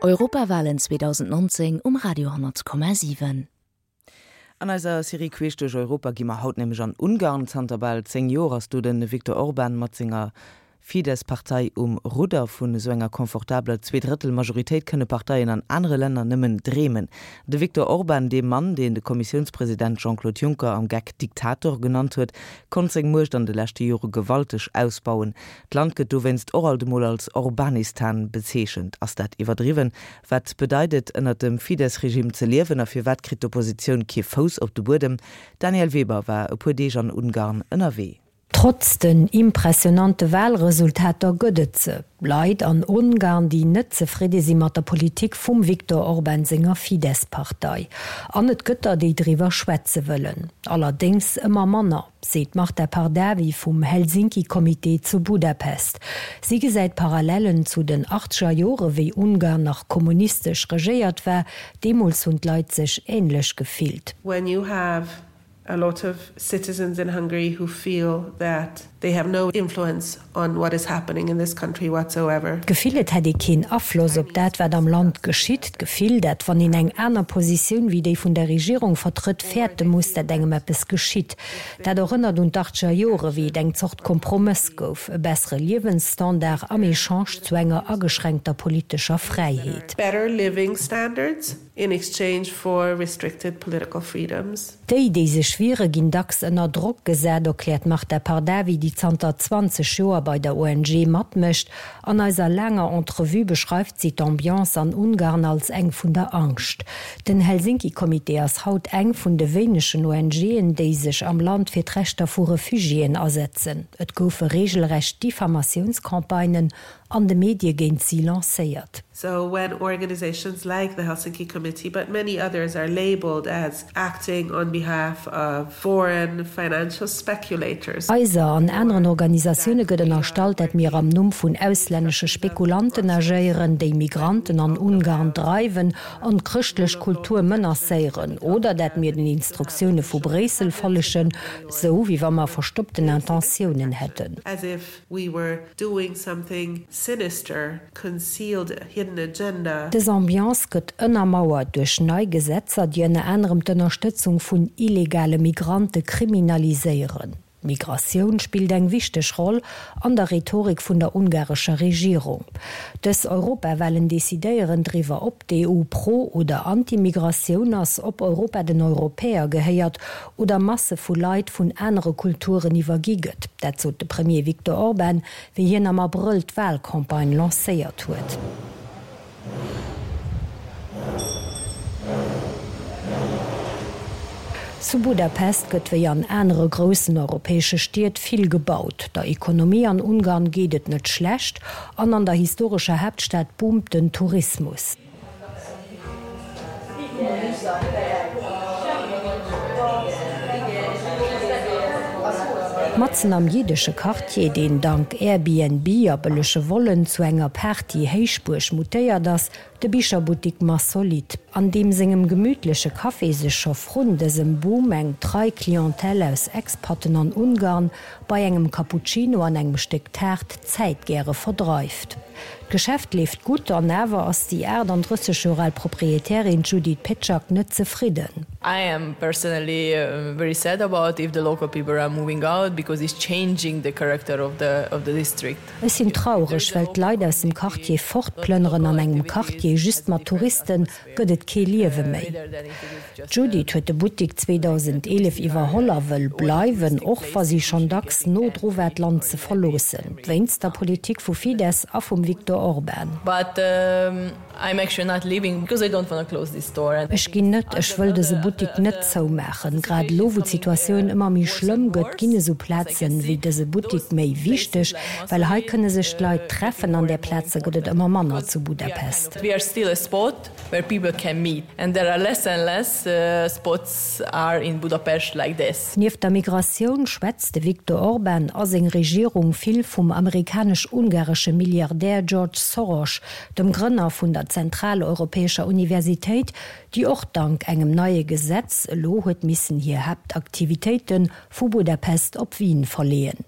Europawalen 2019 um Radio 10,7. An eiser Serie Queesch duerch Europa gi mer haut nämlech an Ungarn. Zanter bal 10 Joer ass do de Viktor Orban mat senger Fidesz-Partei um Rudder. Vun esou enger confortabeler Zweedrëttel-Majoritéit kënne Parteien an anere Länner nëmmen dreemen. De Viktor Orban, dee Mann, deen de Kommissiounspresident Jean-Claude Juncker am Geck Diktator genannt huet, konnt seng Muecht an de leschte Jore gewalteg ausbauen. D'Land gëtt dowéinst och alt emol als Orbanistan bezeechent. Ass dat iwwerdriwwen? Wat bedeit et, ënnert dem Fidesz-Regime ze liewen a firwat kritt d'Oppositioun kee Fouss op de Buedem? D'Danièle Weber war e puer Deeg an Ungarn ënnerwee. Trotz den impressionante Walresultater gëtt et se, Leit an Ungarn, déi net zefridde si mat der Politik vum Viktor Orban senger Fidesz-Partei. An et gëtt der, déi driwwer schwätze wëllen. Allerdéngs ëmmer manner. Seet d'Marta Pardavi vum Helsinki-Comité zu Budapest. Si gesäit Parallellen zu den achtzeger Jore wéi Ungarn nach kommunistesch regéiert war. Deemools hunn d'Leit sech änlech gefillt. When you have a lot of citizens in Hungary who feel that they have no influence on what is happening in this country whatsoever. D'Gefill, et hätt ee keen Afloss op dat, wat am Land geschitt. D'Gefill, dat wann een eng aner Positioun wéi déi vun der Regierung vertrëtt, fäerte muss, dat engem eppes geschitt. Dat erënnert un d'Achtzeger Jore, wéi et eng Zort Kompromëss gouf, e bessere Liewensstandard am Echange zu enger ageschränkter politescher Fräiheet. Better living standards in exchange for restricted political freedoms. Déi, déi sech wiere, ginn dacks ënner Drock gesat, erkläert d'Marta Pardavi, déi zanter 20 Joer bei der ONG matmécht. An eiser laanger Entrevue beschreift si d'Ambiance an Ungarn als eng vun der Angscht. Den Helsinki-Comité ass haut eng vun de wéinegen ONGen, déi sech am Land fir d'Rechter vu Refugiéen asetzen. Et goufe reegelrecht Diffamatiounscampagnen an de Medie géint si lancéiert. So when organizations like the Helsinki Committee, but many others are labeled as acting on behalf of foreign financial speculators. Eiser an aneren Organisatioune gëtt ënnerstallt, dat mir am Numm vun auslännesche Spekulanten agéieren, déi Migranten an Ungarn dreiwen an d'chrëschtlech Kultur menacéieren, oder dat mir den Instruktioune vu Bréissel follegen, sou wéi wa mer verstoppten Intentiounen hätten. We were doing something sinister, concealed, hidden agenda. Dës Ambiance gëtt ënnermauert duerch nei Gesetzer, déi ënner anerem d'Ënnerstëtzung vun illegale Migrante kriminaliséieren. D'Migratioun spillt eng wichteg Roll an der Rhetorik vun der ungarescher Regierung. Dës Europawalen decidéieren driwwer, ob d'EU pro oder anti-Migratioun ass, ob Europa den Europäer gehéiert oder Masse vu Leit vun anere Kulturen iwwergi gëtt. Dat sot de Premier Viktor Orban, wéi hien am Abrëll d'Walcampagne lancéiert huet. Zu Budapest gëtt wéi an anere groussen europäesche Stied vill gebaut. Der Ekonomie an Ungarn geet et net schlecht an an der historescher Haaptstad boomt den Tourismus. Matzen am jiddesche Quartier, deen dank Airbnb a bëllege Vollen zu enger Party-Héichbuerg mutéiert ass, de Bicherbuttik Massolit, an deem sengem gemütleche Café sech scho vrun dësem Boom eng trei Clientèle aus Expatten an Ungarn bei engem Cappuccino an engem Stéck Taart d'Zäit gäre verdreift. D'Geschäft leeft gutt, an awer ass déi 38 Joer al Proprietärin Judith Pecak net zefridden. I am personally very sad about if the local people are moving out because it's changing the character of the of the district. Ech sinn traureg, well d'Leit aus dem Quartier fortplënneren. An engem Quartier just mat Touristen gëtt et kee Liewe méi. D'Judith huet de Buttik 2011 iwwerholl a wëll bleiwen, och wa si schonn dacks no dru war d'Land ze verloossen, wéinst der Politik vu Fidesz a vum Viktor Orban. Ech ginn net, ech wëll dëse Buttik net zoumaachen. Grad elo wou d'Situatioun ëmmer méi schlëmm gëtt, ginn esou Plazen wéi dëse Buttik méi wichteg, well hei kënne sech d'Leit treffen an där Plaze gëtt et ëmmer manner zu Budapest. We are still a spot where people can meet and there are less and less spots are in Budapest like this. Nieft der Migratioun schwätzt de Viktor Orban a seng Regierung vill vum amerikanesch-ungaresche Milliardär George Soros, dem Grënner vun der Zentraleuropäescher Universitéit, déi och dank engem neie Gesetz. Gesetz elo huet missen hir Haaptaktivitéite vu Budapest op Wien verleeën.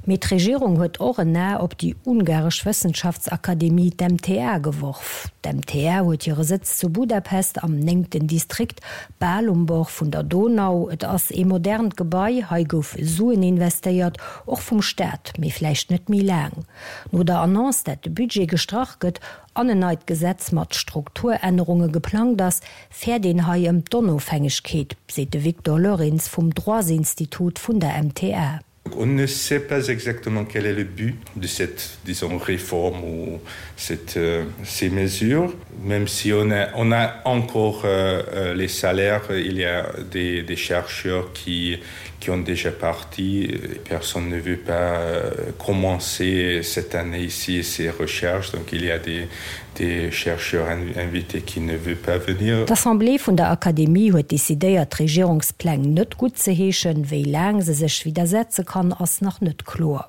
Mee d'Regierung huet och en A op déi ungaresch Wëssenschaftsakademie, d'MTA, geworf. D'MTA huet hire Sëtz zu Budapest am néngten Distrikt, bal um Bord vun der Donau. Et ass ee modernt Gebai, hei goufe Suen investéiert, och vum Staat, mee vläicht net méi laang. No der Annonce, dat de Budget gestrach gëtt an en neit Gesetz mat Strukturännerunge geplangt ass, fäert een hei ëm d'Onofhängegkeet, seet de Victor Lorentz vum Droitsinstitut vun der MTA. On ne sait pas exactement quel est le but de cette disons réforme ou cette euh, ces mesures même si on a, on a encore euh, euh les salaires il y a des, des chercheurs qui qui ont déjà parti personne ne veut pas euh, commencer cette année ici ces recherches donc il y a des des chercheurs invités qui ne veut pas venir. D'Assemblée vun der Akademie huet decidéiert d'Regierungspläng net guttzeheeschen. Wéi laang se sech widdersetze kann, ass nach net kloer.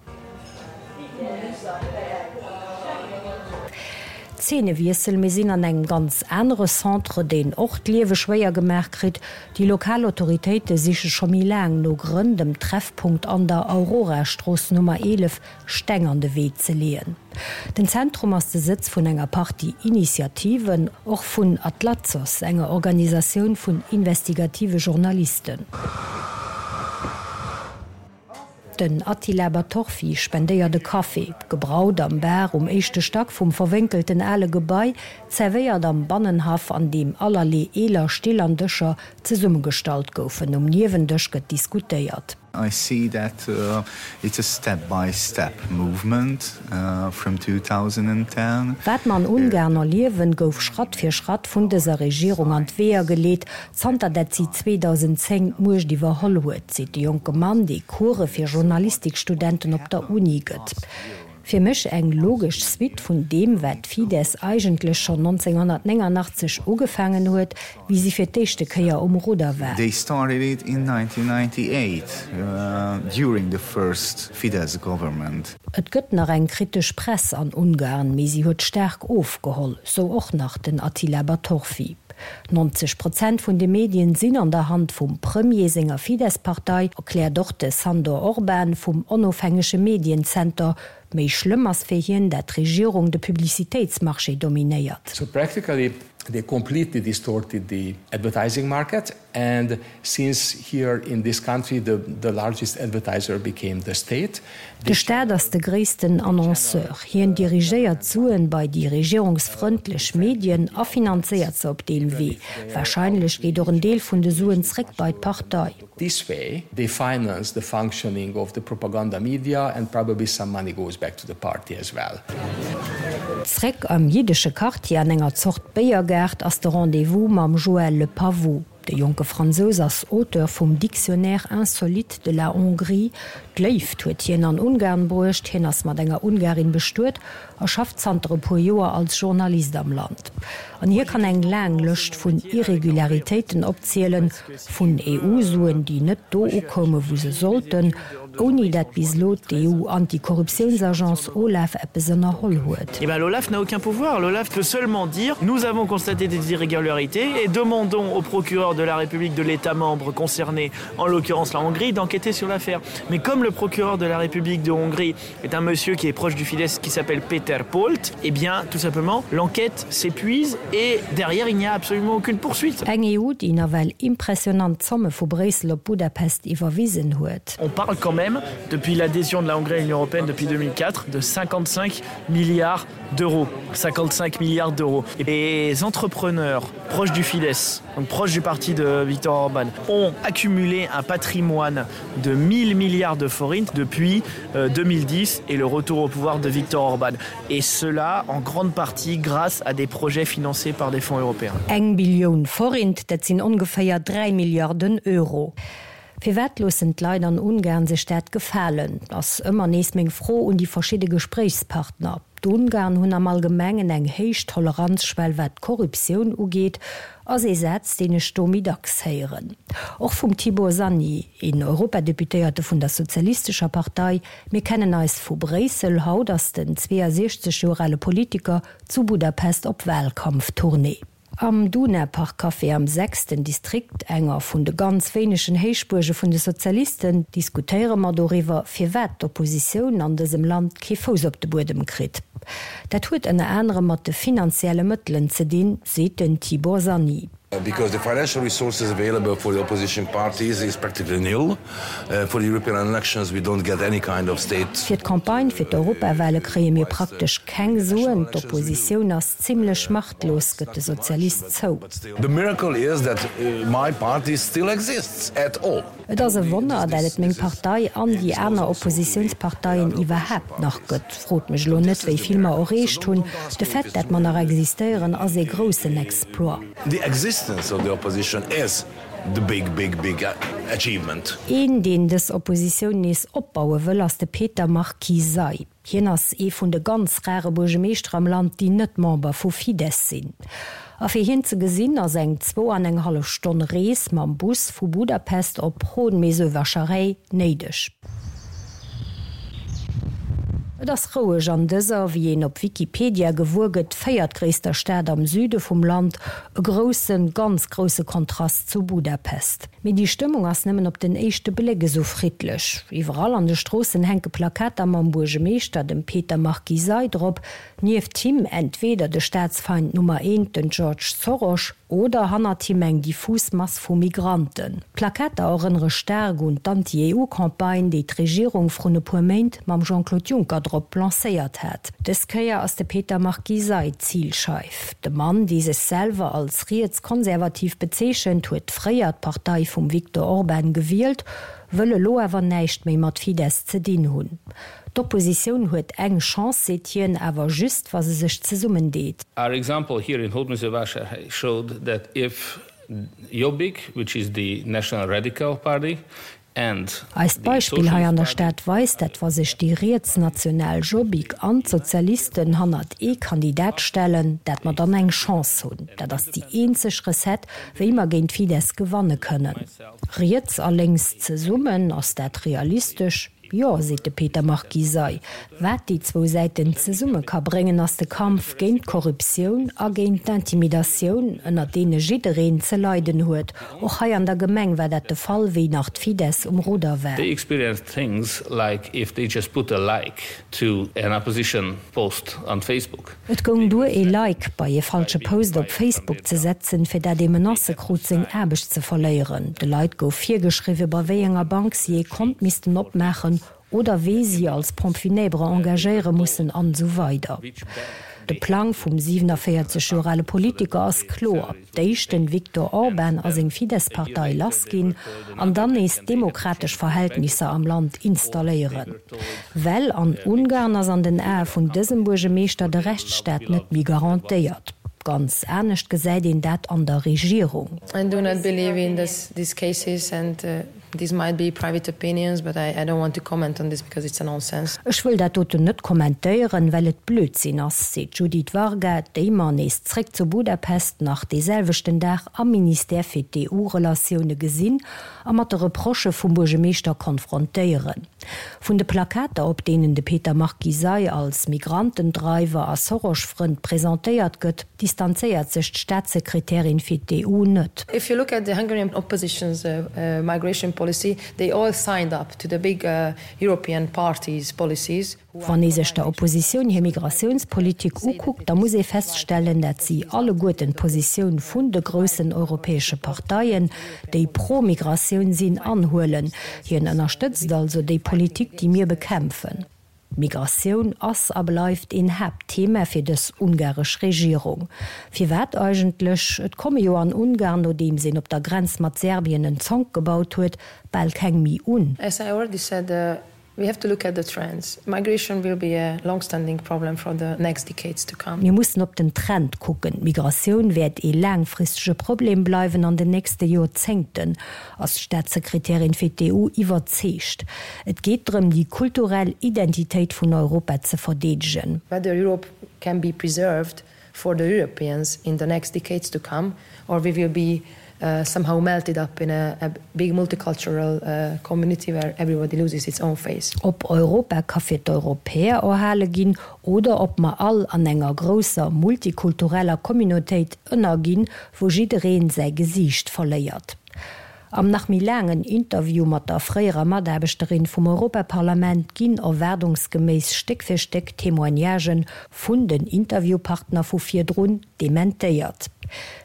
Zeenewiessel, Mir sinn an engem ganz anere Centre, deen och d'Liewe schwéier gemaach kritt. Déi lokal Autoritéite siche scho méi laang no Grënn, dem Treffpunkt an der Aurorastrooss Nummer 11 Steng an de Wee ze leeën. Den Zentrum ass de Sëtz vun enger Partie Initiativen, och vun Atlatsos, enger Organisatioun vun investigative Journalisten. Den Attila Batorfi spendéiert e Café, gebraut am Bar um éischte Stack vum verwénkelten ale Gebai, zerwéiert am Bannenhaff, an deem allerlee eeler Still an Dëscher zesummegestallt goufen. Um Niewendësch gëtt diskutéiert. I see that it's a step by step movement from 2010. Wat mer an Ungarn erliewen, gouf Schratt fir Schratt vun dëser Regierung an d'Weeër geleet, zanter dat si 2010 d'Muecht iwwerholl huet, seet de jonke Mann, dee Course fir Journalistikstudenten op der Uni gëtt. Fir mech eng logesch Suite vun deem, wat d'Fidesz eigentlech schonn 1989 ugefaangen huet, wéi si fir d'éischte Kéier um Rudder war. They started it in 1998 during the first Fidesz government. Et gëtt nach eng kritesch Press an Ungarn, mee si huet staark ofgeholl, sou och nach den Attila Batorfi. 90 Prozent vun de Medien sinn an der Hand vum Premier senger Fidesz-Partei, erkläert och de Sandor Orban vum onofhängege Medienzenter. Méi schlëmm ass fir hien, dat d'Regierung de Publicitéitsmarché dominéiert. So practically they completely distorted the advertising market and since here in this country the the largest advertiser became the state, De Staat ass de gréissten Annonceur. Hien dirigéiert d'Suen bei déi regierungsfrëndlech Medien a finanzéiert se op deem Wee. Warscheinlech geet och en Deel vun de Suen zréck bei d'Partei. This way they finance the functioning of the propaganda media and probably some money goes back to the party as well. Zréck am jiddesche Quartier an enger Zort Béiergaart ass de Rendez-vous mam Joël Le Pavot. De jonke Fransous ass Auteur vum Dictionnaire insolite de la Hongrie. D'Léift huet hien an Ungarn bruecht, hien ass mat enger Ungarin bestuet a schafft zanter e puer Joer als Journalist am Land. An hie kann eng laang Lëscht vun Irregularitéiten opzielen, vun EU-Suen, déi net do ukoume wou se sollten, ouni dat bis elo d'EU-Antikorruptiounsagence OLAF eppes ënnerholl huet. Eh ben l'OLAF n'a aucun pouvoir. L'OLAF peut seulement dire nous avons constaté des irrégularités et demandons au procureur de la République de l'État membre concerné, en l'occurrence la Hongrie, d'enquêter sur l'affaire. Mais comme le procureur de la République de Hongrie est un monsieur qui est proche du Fidesz qui s'appelle Peter Polt, eh bien tout simplement l'enquête s'épuise et derrière il n'y a absolument aucune poursuite. Eng EU, déi nawell impressionant Zomme vu Bréissel op Budapest iwwerwisen huet. On parle quand même depuis l'adhésion de la Hongrie à l'Union européenne depuis 2004 de 55 milliards d'euros 55 milliards d'euros et les entrepreneurs proches du Fidesz donc proches du parti de Victor Orban ont accumulé un patrimoine de 1000 milliards de forints depuis 2010 euh, et le retour au pouvoir de Victor Orban et cela en grande partie grâce à des projets financés par des fonds européens. Eng Billioun Forint, dat sinn ongeféier 3 Milliarden Euro. Firwat loossen d'Leit an Ungarn sech dat gefalen, ass ëmmer nees meng Fro un déi verschidde Gespréichspartner. D'Ungarn hunn am Allgemengen eng héich Toleranzschwell wat d'Korruptioun ugeet, ass ee Saz, deen ech do méi dacks héieren. Och vum Tibor Szanyi, een Europadeputéierte vun der Sozialistescher Partei. Mir kennen eis vu Bréissel, haut ass den 62 Joer ale Politiker zu Budapest op Wahlkampftournée. Am Duna-Park Café am sechsten Distrikt, enger vun de ganz wéinegen Héichbuerge vun de Sozialisten, diskutéiere mer doriwwer, firwat d'Oppositioun an dësem Land kee Fouss op de Buedem kritt. Dat huet ënner anerem mat de finanzielle Mëttelen ze dinn, seet den Tibor Szanyi. Because the financial resources available for the opposition parties is practically nil. For the European elections we don't get any kind of state. Fir d'Campagne fir d'Europawale kréie mir praktesch keng Suen. D'Oppositioun ass zimlech machtlos, gëtt de Sozialist zou. The miracle is that my party still exists at all. Et ass e Wonner, dat et meng Partei an déi aner Oppositiounsparteien iwwerhaapt nach gëtt. Frot mech elo net, wéi vill mer erreecht hunn. De Fait, dat mer nach existéieren, ass ee groussen Exploit. The existence of the opposition is the big, big, big achievement. Een, deen dës Oppositioun nees opbaue wëll, ass de Peter Márki-Zay. Hien ass ee vun de ganz rare Buergemeeschter am Land, déi net Member vu Fidesz sinn. A fir hien ze gesinn, ass eng zwou an eng hallef Stonn Rees mam Bus vu Budapest op Hódmezővásárhely néideg. Et ass roueg an dëser, wéi een op Wikipedia gewuer gëtt, véiertgréisster Stad am Süde vum Land, e groussen, ganz grousse Kontrast zu Budapest. Mee déi Stëmmung ass nëmmen op den éischte Bléck esou friddlech. Iwwerall an de Stroossen hänke Plakater mam Buergemeeschter, dem Peter Márki-Zay, drop, nieft him entweder de Staatsfeind Nummer eent, den George Soros, Oder hannert him eng diffus Mass vu Migranten. D'Plakater erënnere staark un d'Anti-EU-Campagne, déi d'Regierung vrun e puer Méint mam Jean-Claude Juncker drop lancéiert hat. Dës Kéier ass de Peter Márki-Zay d'Zilscheif. De Mann, dee sech selwer als riets-konservativ bezeechent, huet fréier d'Partei vum Viktor Orban gewielt, wëll elo awer näischt méi mat Fidesz ze dinn hunn. D'Oppositioun huet eng Chance, seet hien, awer just wa se sech zesummendeet. Our example here in Hódmezővásárhely showed that if Jobbik, which is the national radical party, and Eist Beispill hei an der Stad weist, dat wa sech déi rietsnational Jobbik an d'Sozialisten hannert ee Kandidat stellen, dat mer dann eng Chance hunn. Dat ass déi eenzeg Recette, wéi mer géint Fidesz gewanne kënnen. Riets a lénks zesummen, ass dat realistesch? Jo, seet de Peter Márki-Zay. Wat déi zwou Säiten zesumme ka bréngen, ass de Kampf géint d'Korruptioun a géint d'Intimidatioun, ënner deene jiddereen ze leiden huet. Och hei an der Gemeng war dat de Fall, wéi nach d'Fidesz um Rudder war. They experienced things like if they just put a like to an opposition post on Facebook. Et goung duer ee Like bei ee falsche Post op Facebook ze setzen, fir dat ee Menacë krut seng Aarbecht ze verléieren. De Leit gouf virgeschriwwe bei wéi enger Bank si ee Kont missten opmaachen oder wee si als Pompe funèbre engagéiere mussen an esou weider. De Plang vum 47 Joer ale Politiker ass kloer. D'éischt den Viktor Orban a seng Fidesz-Partei lass ginn an dann nees demokratesch Verhältnisser am Land installéieren. Well an Ungarn ass an den Ae vun dësem Buergemeeschter de Rechtsstaat net méi garantéiert. Ganz anescht gesäit een dat an der Regierung. I do not believe in these cases and These might be private opinions, but I, I don't want to comment on this because it's a nonsense. Ech wëll dat doten net kommentéieren, well et Blödsinn ass, seet d'Judith Varga, déi mer, nees zréck zu Budapest, nach dee selwechten Dag am Ministère fir d'EU-Relatioune gesinn a mat de Reprochë vum Buergemeeschter konfrontéieren. Vun de Plakater, op deenen de Peter Márki-Zay als Migrantendreiwer a Soros-Frënd presentéiert gëtt, distanzéiert sech d'Staatssekretärin fir d'EU net. If you look at the Hungarian opposition's migration policy, they all signed up to the big European parties' policies. Wann ee sech der Oppositioun hir Migratiounspolitik ukuckt, da muss ee feststellen, dat si alleguerten d'Positioun vun de groussen europäesche Parteien, déi pro Migratioun sinn, anhuelen. Hien ënnerstëtzt also déi Politik, déi mir bekämpfen. D'Migratioun ass a bleift een Haaptthema fir dës ungaresch Regierung. Firwat eigentlech? Et komme jo an Ungarn, nodeems een op der Grenz mat Serbien en Zonk gebaut huet, bal keng méi un. As I already said, we have to look at the trends. Migration will be a longstanding problem for the next decades to come. Mir mussen op den Trend kucken. D'Migratioun wäert ee laangfristege Problem bleiwen an den nächste Joerzéngten. Ass d'Staatssekretärin fir d'EU iwwerzeegt. Et geet drëm, déi kulturell Identitéit vun Europa ze verdeedegen. Whether Europe can be preserved for the Europeans in the next decades to come or we will be. uh, somehow melted up in a, a big multicultural uh, community where everybody loses its own face. Ob Europa ka fir d'Europäer erhale ginn oder ob mer all an enger grousser multikultureller Communautéit ënnerginn, wou jiddereen säi Gesiicht verléiert. Am nach méi laangen Interview mat der fréierer Mataarbechterin vum Europaparlament ginn erwaardungsgeméiss Stéck fir Stéck Témoignagen vun den Interviewpartner vu virdrun dementéiert.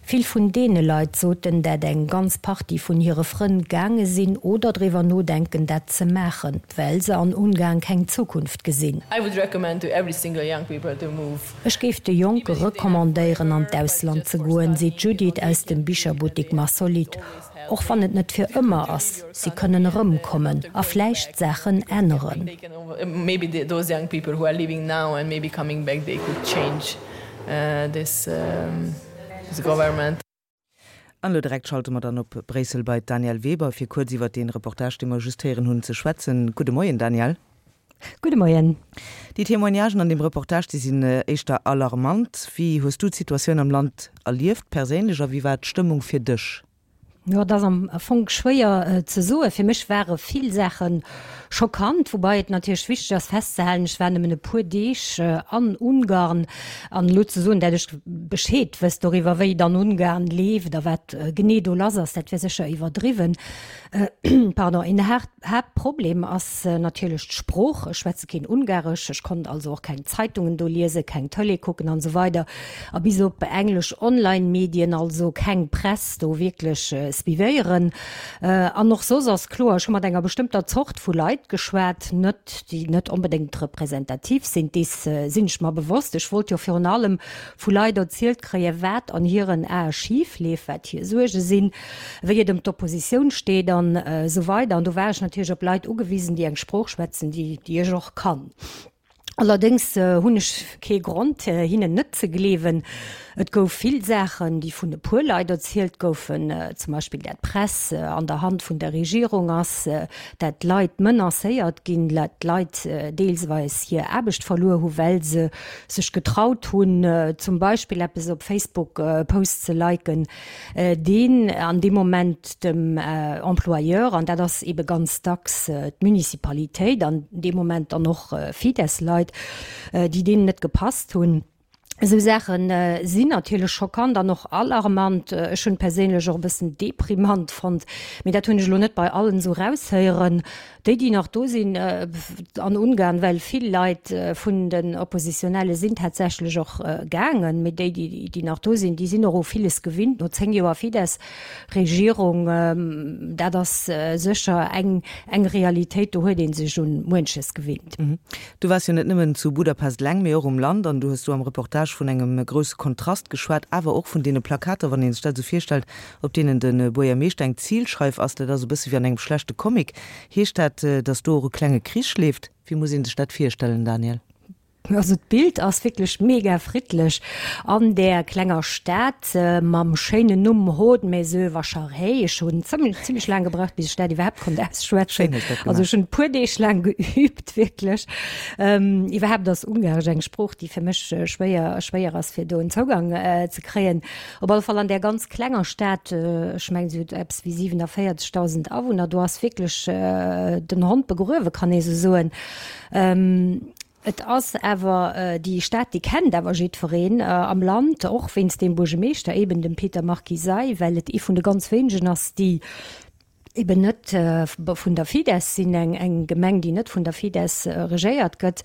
Vill vun deene Leit soten, dat eng ganz Partie vun hire Frënn gaange sinn oder driwwer nodenken dat ze maachen, well se an Ungarn keng Zukunft gesinn. I would recommend to every single young people to move. Ech géif de Jonke recommandéieren an d'Ausland ze goen, seet d'Judith aus dem Bicherbuttik Massolit. Och wann et net fir ëmmer ass, si kënnen erëmkommen a vläicht Saachen änneren. An elo direkt schalte mer dann op Bréissel bei d'Danièle Weber, fir kuerz iwwert dee Reportage, dee mer just héieren hunn, ze schwätzen. Gudde Moien, Danièle. Gudde Moien. Déi Témoignagen an deem Reportage, déi sinn éischter alarmant. Wéi hues du d'Situatioun am Land erlieft perséinlech a wéi war d'Stëmmung fir dech? Jo, et ass am Fong schwéier ze soen. Fir mech ware vill Saache schockant, woubai et natierlech wichteg ass festzehalen, ech war nëmmen e puer Deeg an Ungarn an elo ze soen, dat ech Bescheed wësst doriwwer, wéi et an Ungarn leeft a wat genee do lass ass, dat wär sécher iwwerdriwwen. Pardon. Een Haaptproblem ass natierlech d'Sprooch. Ech schwätze keen Ungaresch, ech konnt also och keng Zeitungen do liesen, keng Tëlee kucken an esou weider a bis op englesch Online-Medien, also keng Press do wierklech suivéieren. An och soss ass kloer, ech hu mat enger bestëmmter Zort vu Leit geschwat, net déi net onbedéngt representativ sinn, dees sinn ech mer bewosst. Ech wollt jo virun allem vu Leit erzielt kréien, wat an hiren Ae schif leeft, wat hir Suerge sinn, wéi et ëm d'Oppositioun steet an esou weider. An do war ech natierlech op Leit ugewisen, déi eng Sprooch schwätzen, déi déi ech och kann. Allerdéngs hunn ech kee Grond, hinnen net ze gleewen. Et gouf vill Saachen, déi vun e puer Leit erzielt goufen, zum Beispill dat d'Press an der Hand vun der Regierung ass, dat Leit menacéiert ginn, dat Leit deelsweis hir Aarbecht verluer hu well se sech getraut hunn, zum Beispill eppes op Facebook Post ze liken, deen an deem Moment dem Employeur, an dat ass eebe ganz dacks d'Municipalitéit, an deem Moment dann och Fidesz-Leit, déi deenen net gepasst hunn. Esou Saache sinn natierlech schockant an och alarmant. Ech hunn et perséinlech och e bëssen deprimant fonnt, mee dat hunn ech elo net bei allen esou eraushéieren. Déi, déi nach do sinn an Ungarn, well vill Leit vun den Oppositionelle sinn tatsächlech och gaangen, mee déi, déi nach do sinn, déi sinn och u villes gewinnt no 10 Joer Fidesz-Regierung. Dat ass sécher eng Realitéit, do huet ee sech un muenches gewinnt. Du waars jo net nëmmen zu Budapest eleng, mee och um Land an du hues do am Reportage vun engem grousse Kontrast geschwat, awer och vun deene Plakater, wann ee sech dat esou virstellt, op deenen de Buergermeeschter eng Zilscheif ass, dat ass e bësse wéi an engem schlechte Comic. Heescht dat, datt do och e klenge Krich leeft? Wéi muss ee sech dat virstellen, Daniel? Also d'Bild ass wierklech mega friddlech an där klenger Stad mam schéinen Numm Hódmezővásárhely. Ech hunn zimlech laang gebraucht, bis ech dat iwwerhaapt konnt ausschwätzen. Also ech hunn e puer Deeg laang geübt, wierklech. Iwwerhaapt ass Ungaresch eng Sprooch, déi fir mech schwéier schwéier ass, fir do en Zougang ze kréien. Op alle Fall an där ganz klenger Stad, ech mengen se huet eppes wéi 47.000 Awunner, do ass wierklech den Hond begruewe kann ee sou soen. Et ass awer déi Stad, déi kennt awer jiddwereen am Land, och wéinst deem Buergemeeschter, eben dem Peter Márki-Zay, well et ee vun de ganz wéinegen ass, déi eben net vun der Fidesz sinn, eng eng Gemeng, déi net vun der Fidesz regéiert gëtt.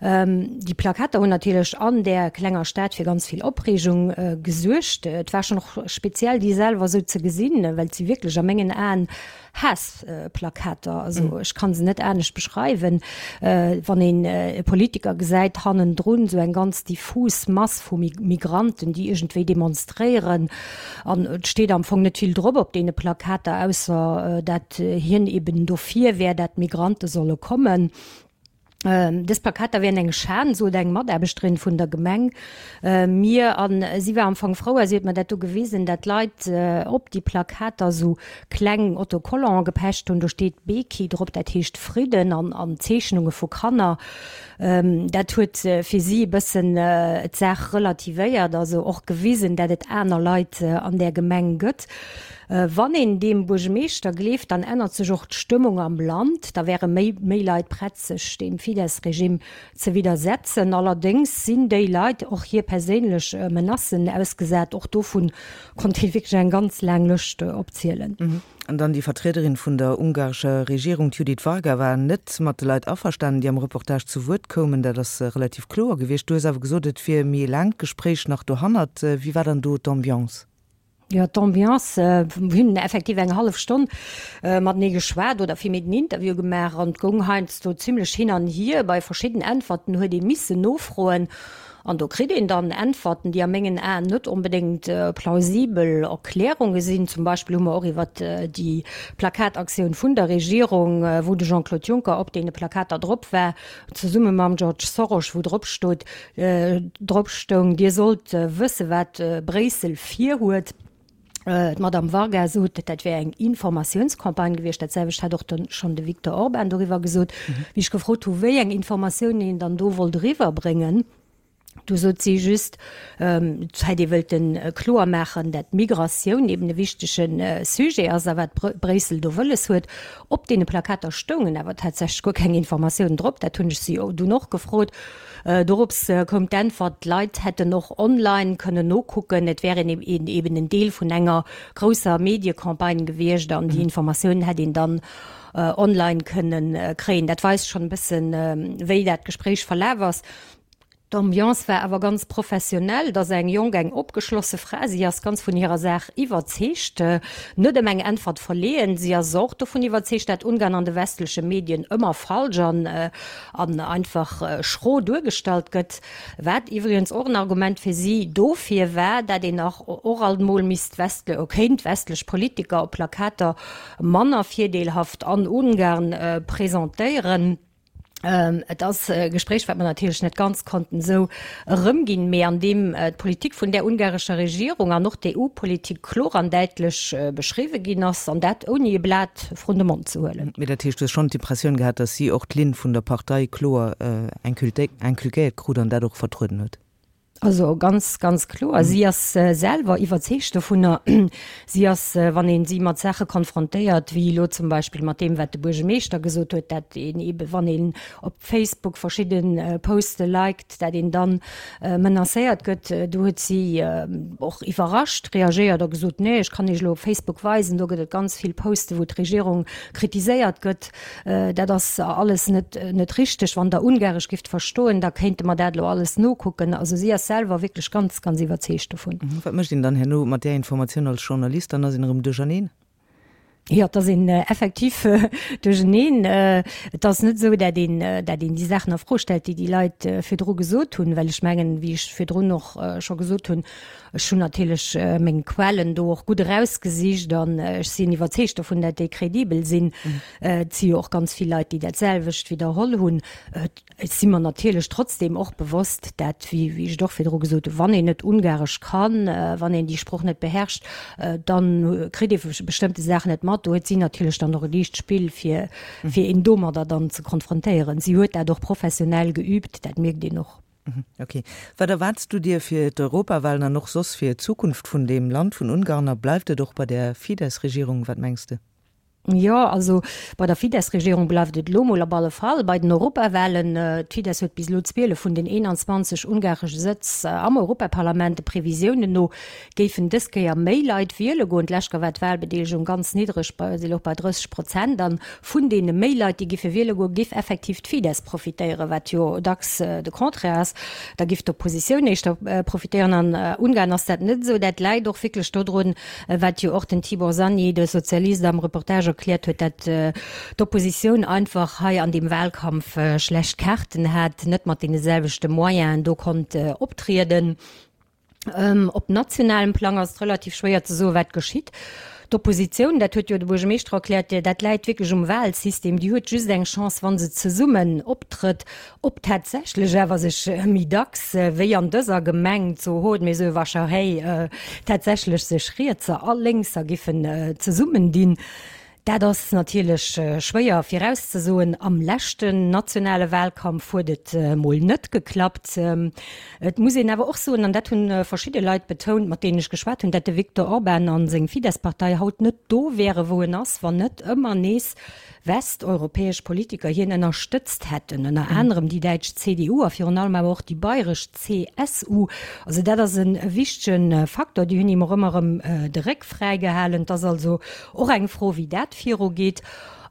Déi Plakater hunn natierlech an där klenger Stad fir ganz vill Opreegung gesuergt. Et war schonn och speziell, déi selwer esou ze gesinn, well et si wierklech a mengen Aen Haassplakater. Also ech ka se net anescht beschreiwen. Wann een e Politiker gesäit, hannendrun esou eng ganz diffus Mass vu Migranten, déi iergendwéi demonstréieren, An et steet am Fong net vill drop op deene Plakater, ausser dat hien eben dofir wär, dat d'Migrante solle kommen. Dës Plakater wären eng Schan, sot eng Mataarbechterin vun der Gemeng mir. A si war am Fong frou, a si huet mer dat do gewisen, dat d'Leit op déi Plakater esou kleng Autocollante gepecht hunn. Do steet Béki drop, dat heescht Fridden, an Zeechnunge vu Kanner. Dat huet fir si e bëssen d'Saach relativéiert, also och gewisen, dat et aner Leit an där Gemeng gëtt. Wann een deem Buergemeeschter gleeft, dann ännert sech och d'Stëmmung am Land, da wäre méi méi Leit prett sech deem Fidesz-Regime ze widdersetzen. Allerdéngs sinn déi Leit och hir perséinlech Menacen ausgesat. Och dovun konnt ee wierklech eng ganz laang Lëscht opzielen. An dann déi Vertriederin vun der ungarescher Regierung, d'Judith Varga, war net mat de Leit averstanen, déi am Reportage zu Wuert koumen. Dat ass relativ kloer gewiescht. Du hues awer gesot, et wier méi e laangt Gespréich nach dohannert. Wéi war dann do d'Ambiance? Jo, d'Ambiance, mir hunn effektiv eng hallef Stonn matenee geschwat oder villméi den Interview gemaach an et goung heiansdo zimlech hin an hier. Bei verschidden Äntwerten huet ee missen nofroen an do kritt een dann Äntwerten, déi a mengen Aen net onbedéngt plausibel Erklärunge sinn. Zum Beispill hu mer och iwwert déi Plakataktioun vun der Regierung, wou de Jean-Claude Juncker op deene Plakater drop war, zesumme mam George Soros, wou drop stot, drop stoung, Dir sollt wësse wat Bréissel virhuet. D'Madame Varga sot, dat wär eng Informatiounscampagne gewiescht. Dat selwecht hat och dann schonn de Viktor Orban doriwwer gesot. Wéi ech gefrot hu wéi eng Informatiounen een dann do wollt eriwwerbréngen, Do sot si just, et hätt ee wëllte kloer maachen, dat d'Migratioun eben e wichtege Sujet ass a wat Bréissel do wëlles huet. Op deene Plakater stoungen awer tatsächlech guer keng Informatiounen drop. Dat hunn ech si dunn och gefrot. Dorops koum d'Äntwert, d'Leit hätten och online kënnen nokucken, et wär een eben en Deel vun enger grousser Mediecampagne gewiescht an déi Informatiounen hätt een dann online kënne kréien. Dat weist schonn e bëssen, wéi dat Gespréich verlaf ass. D'Ambiance war awer ganz professionell. Et ass eng jonk, eng opgeschlosse Fra. Si ass ganz vun hirer Saach iwwerzeegt, net ëm eng Äntwert verleeën. Si ass och dovun iwwerzeegt, dat Ungarn an de westleche Medien ëmmer falsch an an einfach schro duergestallt gëtt. Wat iwwregens och en Argument fir si dofir war, dat een nach och alt mol misst westle kéint westlech Politiker op Plakater manner virdeelhaft an Ungarn presentéieren. Et ass e Gespréich, wat mer natierlech net ganz konnten esou erëmginn, mee an deem d'Politik vun där ungarescher Regierung an och d'EU-Politik kloer an däitlech beschriwwe ginn ass, an dat ouni e Blat vrun de Mond ze huelen. Mee dat heescht, du hues schonn d'Impressioun gehat, datt si och d'Linn vun der Partei kloer inculquéiert krut an dat och vertrueden huet? Also ganz, ganz kloer. Si ass selwer iwwerzeegt dovunner. Si ass, wann ee si mat Saache konfrontéiert, wéi elo zum Beispill mat deem, wat de Buergemeeschter gesot huet, dat een eebe wann een op Facebook verschidde Poste liked, dat een dann menacéiert gëtt, do huet si och iwwerrascht reagéiert a gesot, Nee, ech kann Iech elo op Facebook weisen, do gëtt et ganz vill Poste wou d'Regierung kritiséiert gëtt. Dat ass alles net, net richteg. Wann Der Ungaresch gifft verstoen, da kéinte mer dat elo alles nokucken. Also si ass selwer wierklech ganz, ganz iwwerzeegt dovun. Wat mécht een dann herno mat där Informatioun als Journalist? Dann ass een erëm duercherneen? Jo, et ass een effektiv duercherneen. Et ass net esou, dat een, dat een déi Saachen a Fro stellt, déi déi Leit virdru gesot hunn, well ech mengen, wéi ech virdrun och scho gesot hunn, Ech hunn natierlech meng Quellen do och gutt erausgesicht an ech sinn iwwerzeegt dovun, dat déi kredibel sinn. Et si jo och ganz vill Leit, déi dat selwecht widderholl hunn. Et si mer natierlech trotzdeem och bewosst, dat, wéi ech et och virdru gesot hunn, wann een net Ungaresch kann, wann een déi Sproch net beherrscht, da kritt ee bestëmmte Saachen net mat. Do huet si natierlech dann och e liicht Spill, fir een domadder dann ze konfrontéieren. Si huet dat och professionell geüübt, dat mierkt een och. Ok. Wat erwaarts du dir fir d'Europawahlen an och soss fir d'Zukunft vun deem Land, vun Ungarn? A bleift et och bei där Fidesz-Regierung? Wat mengs de? Jo, also bei der Fidesz-Regierung bleift et elo mol op alle Fall bei den Europawahlen. D'Fidesz huet bis elo 12 vun den 21 ungaresche Sëtz am Europaparlament. De Previsiounen no géifen dës Kéier méi Leit wiele goen. D'lescht Kéier war d'Wahlbedeelegung ganz niddreg, si louch bei 30 Prozent. An vun deene méi Leit, déi giffe wiele goen, géif effektiv d'Fidesz profitéieren, wat jo dacks de Contraire ass. Da giff d'Oppositioun éischter profitéieren. An Ungarn ass dat net esou. Dat läit och wierklech dodrun, wat jo och den Tibor Szanyi, de Sozialist, am Reportage erkläert huet, dat d'Oppositioun einfach hei an deem Wahlkampf schlecht Kaarten hat, net mat deene selwechte Moyenen do konnt optrieden. Op nationalem Plang ass et relativ schwéier ze soen, wat geschitt. D'Oppositioun, dat huet jo de Buergermeeschter erkläert, dat läit wierklech um Wahlsystem, déi huet just eng Chance, wa se zesummen optrëtt. Ob tatsächlech awer sech méi dacks wéi an dëser Gemeng zu Hódmezővásárhely tatsächlech sech Rietser a Lénkser giffen zesummendinn. Dat ass natierlech schwéier virauszesoen. Am leschten nationale Wahlkampf huet et mol net geklappt. Et muss een awer och soen, an dat hu verschidde Leit betount, mat deenen ech geschwat hunn, dat de Viktor Orban a seng Fidesz-Partei haut net do wäre wou en ass, wann net ëmmer nees westeuropäesch Politiker hien ënnerstëtzt hätten, ënner anerem déi däitsch CDU a virun allem awer och déi bayresch CSU. Also dat ass e wichtege Faktor. Déi hunn him och ëmmer erëm de Réck fräi gehalen. Et ass also och eng Fro, wéi dat virugeet.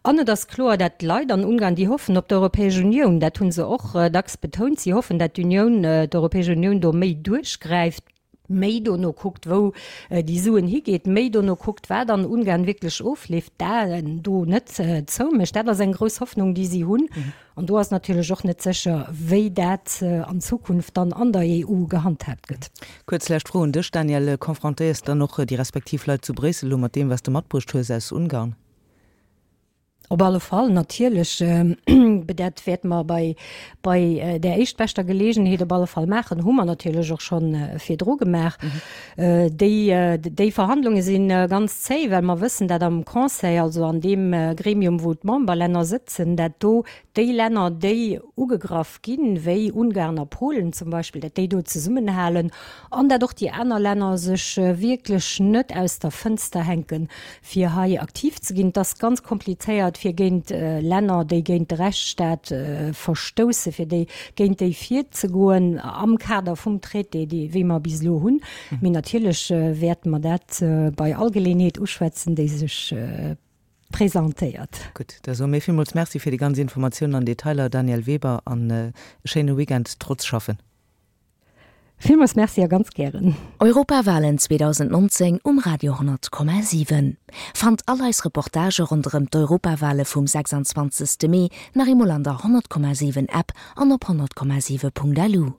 An et ass kloer, dat d'Leit an Ungarn, déi hoffen op d'Europäesch Unioun. Dat hu se och dacks betount. Si hoffen, dat d'Unioun, d'Europäesch Unioun do méi duerchgräift. Méi dono kuckt, wou déi Suen higeet, méi dono kuckt, wat an Ungarn wierklech ofleeft, d'Aen do net zoumécht. Dat ass eng grouss Hoffnung, déi si hunn. An do ass natierlech och net sécher, wéi dat an Zukunft dann an der EU gehandhaabt gëtt. Kuerz lescht Fro un dech, Daniel, Confrontéiers de dann och déi respektiv Leit zu Bréissel elo mat deem, wat s de matbruecht hues aus Ungarn? Op alle Fall, natierlech. Dat wäerte mer bei, bei där éischtbeschter Geleegenheet op alle Fall maachen. Hu mer natierlech och scho virdru gemaach. Déi, déi Verhandlunge si ganz zéi, well mer wëssen, dat am Conseil, also an deem Gremium, wou d'Memberlänner sëtzen, dat do déi Länner, déi ugegraff ginn, wéi Ungarn a Polen zum Beispill, dat déi do zesummenhalen an dat och déi aner Länner sech wierklech net aus der Fënster hänken, fir hei aktiv ze ginn. Et ass ganz komplizéiert, fir géint Länner, déi géint de Rechtsstaat verstoussen, fir déi, géint déi virzegoen am Kader vum Traité, dee wéi mer bis elo hunn. Mee natierlech wäerte mer dat bei all Geleeënheet uschwätzen, déi sech presentéiert. Gutt, da soe mir villmools Merci fir déi ganz Informatiounen an Detailer, Danièle Weber, an e schéine Weekend trotz Schaffen. Villmools Merci a ganz gären. Europawalen 2019 um Radio 10,7. Fannt all eis Reportagë ronderëm d'Europawale vum 26. Mee nach eemol an der 100,7 App an op 100,7.lu.